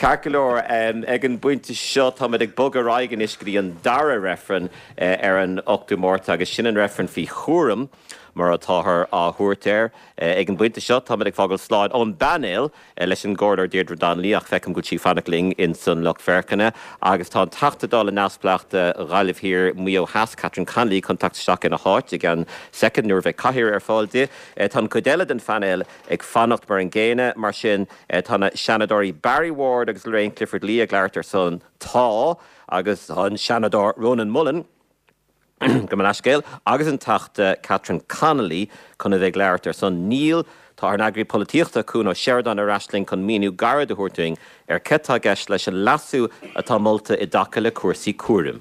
Ceart go leor, ag an bpointe seo táimid ag bogadh ar aghaidh anois go dtí an dara reifreann ar an 8ú Márta agus sin an reifreann faoi chúram mar atáthar á thabhairt air. Ag an bpointe seo táimid ag fágáil slán ón bpainéal leis an gComhairleoir Deirdre Donnelly ach feicim go bhfuil sí ag fanacht linn ins an lucht féachana agus tá an Teachta Dála neamhspleách do Ghaillimh Thiar, Maigh Eo Theas, Catherine Connolly chun teacht isteach ina háit i gceann soicind nuair a bheidh cathaoir ar fáil di. Tá an chuid eile den phainéal ag fanacht mar an gcéanna. Mar sin, tá na Seanadóirí Barry Ward agus Lorraine Clifford-Lee ag labhairt ar son 'Tá' agus tá an Seanadóir Rónán Mullen, gabh mo leithscéal, agus an Teachta Catherine Connolly chun a bheith ag labhairt ar son 'Níl'. Tá ár n-eagraí polaitíochta, Cuan Ó Seireadáin ar ais linn chun míniú gairid a thabhairt dúinn ar céard atá i gceist leis an leasú atá molta i dtaca le cúrsaí cúraim.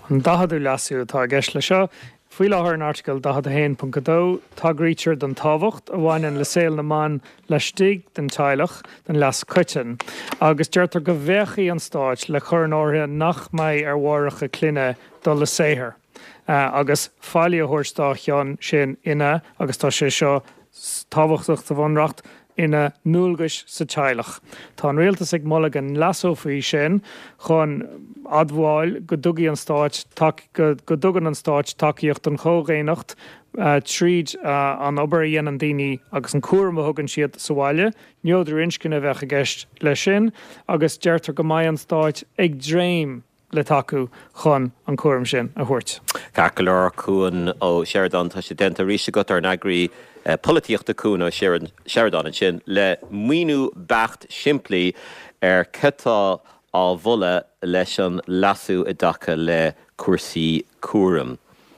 An 40ú leasú atá i gceist leis seo. Faoi láthair in Airteagal 41.2, tagraítear don tábhacht a bhaineann le saol na mban laistigh den teaghlach don leas coiteann, agus deirtear go bhféachfaidh an Stát le cur in áirithe nach mbeidh ar mháithreacha clainne dul le saothar agus faillí a thabhairt dá chionn sin ina, agus tá sé seo tábhachtach sa Bhunreacht, ina ndualgais sa teaghlach. Tá an Rialtas ag moladh go leasófaí sin chun admháil go dtugaidh an Stáit go dtugann an Stáit tacaíocht don chomhdhaonnacht tríd an obair a dhéanann daoine agus an cúram a thugann siad sa bhaile. Neodrú inscne a bheadh i gceist leis sin agus deirtear go mbeidh an Stáit ag dréim le tacú chun an cúram sin a thabhairt. Ceart go leor, Cuan Ó Seireadáin, tá sé déanta arís agat, ár n-eagraí polaitíochta Cuan Ó Seireadáin ansin le míniú beacht simplí ar cad tá á mholadh leis an leasú i dtaca le cúrsaí cúraim.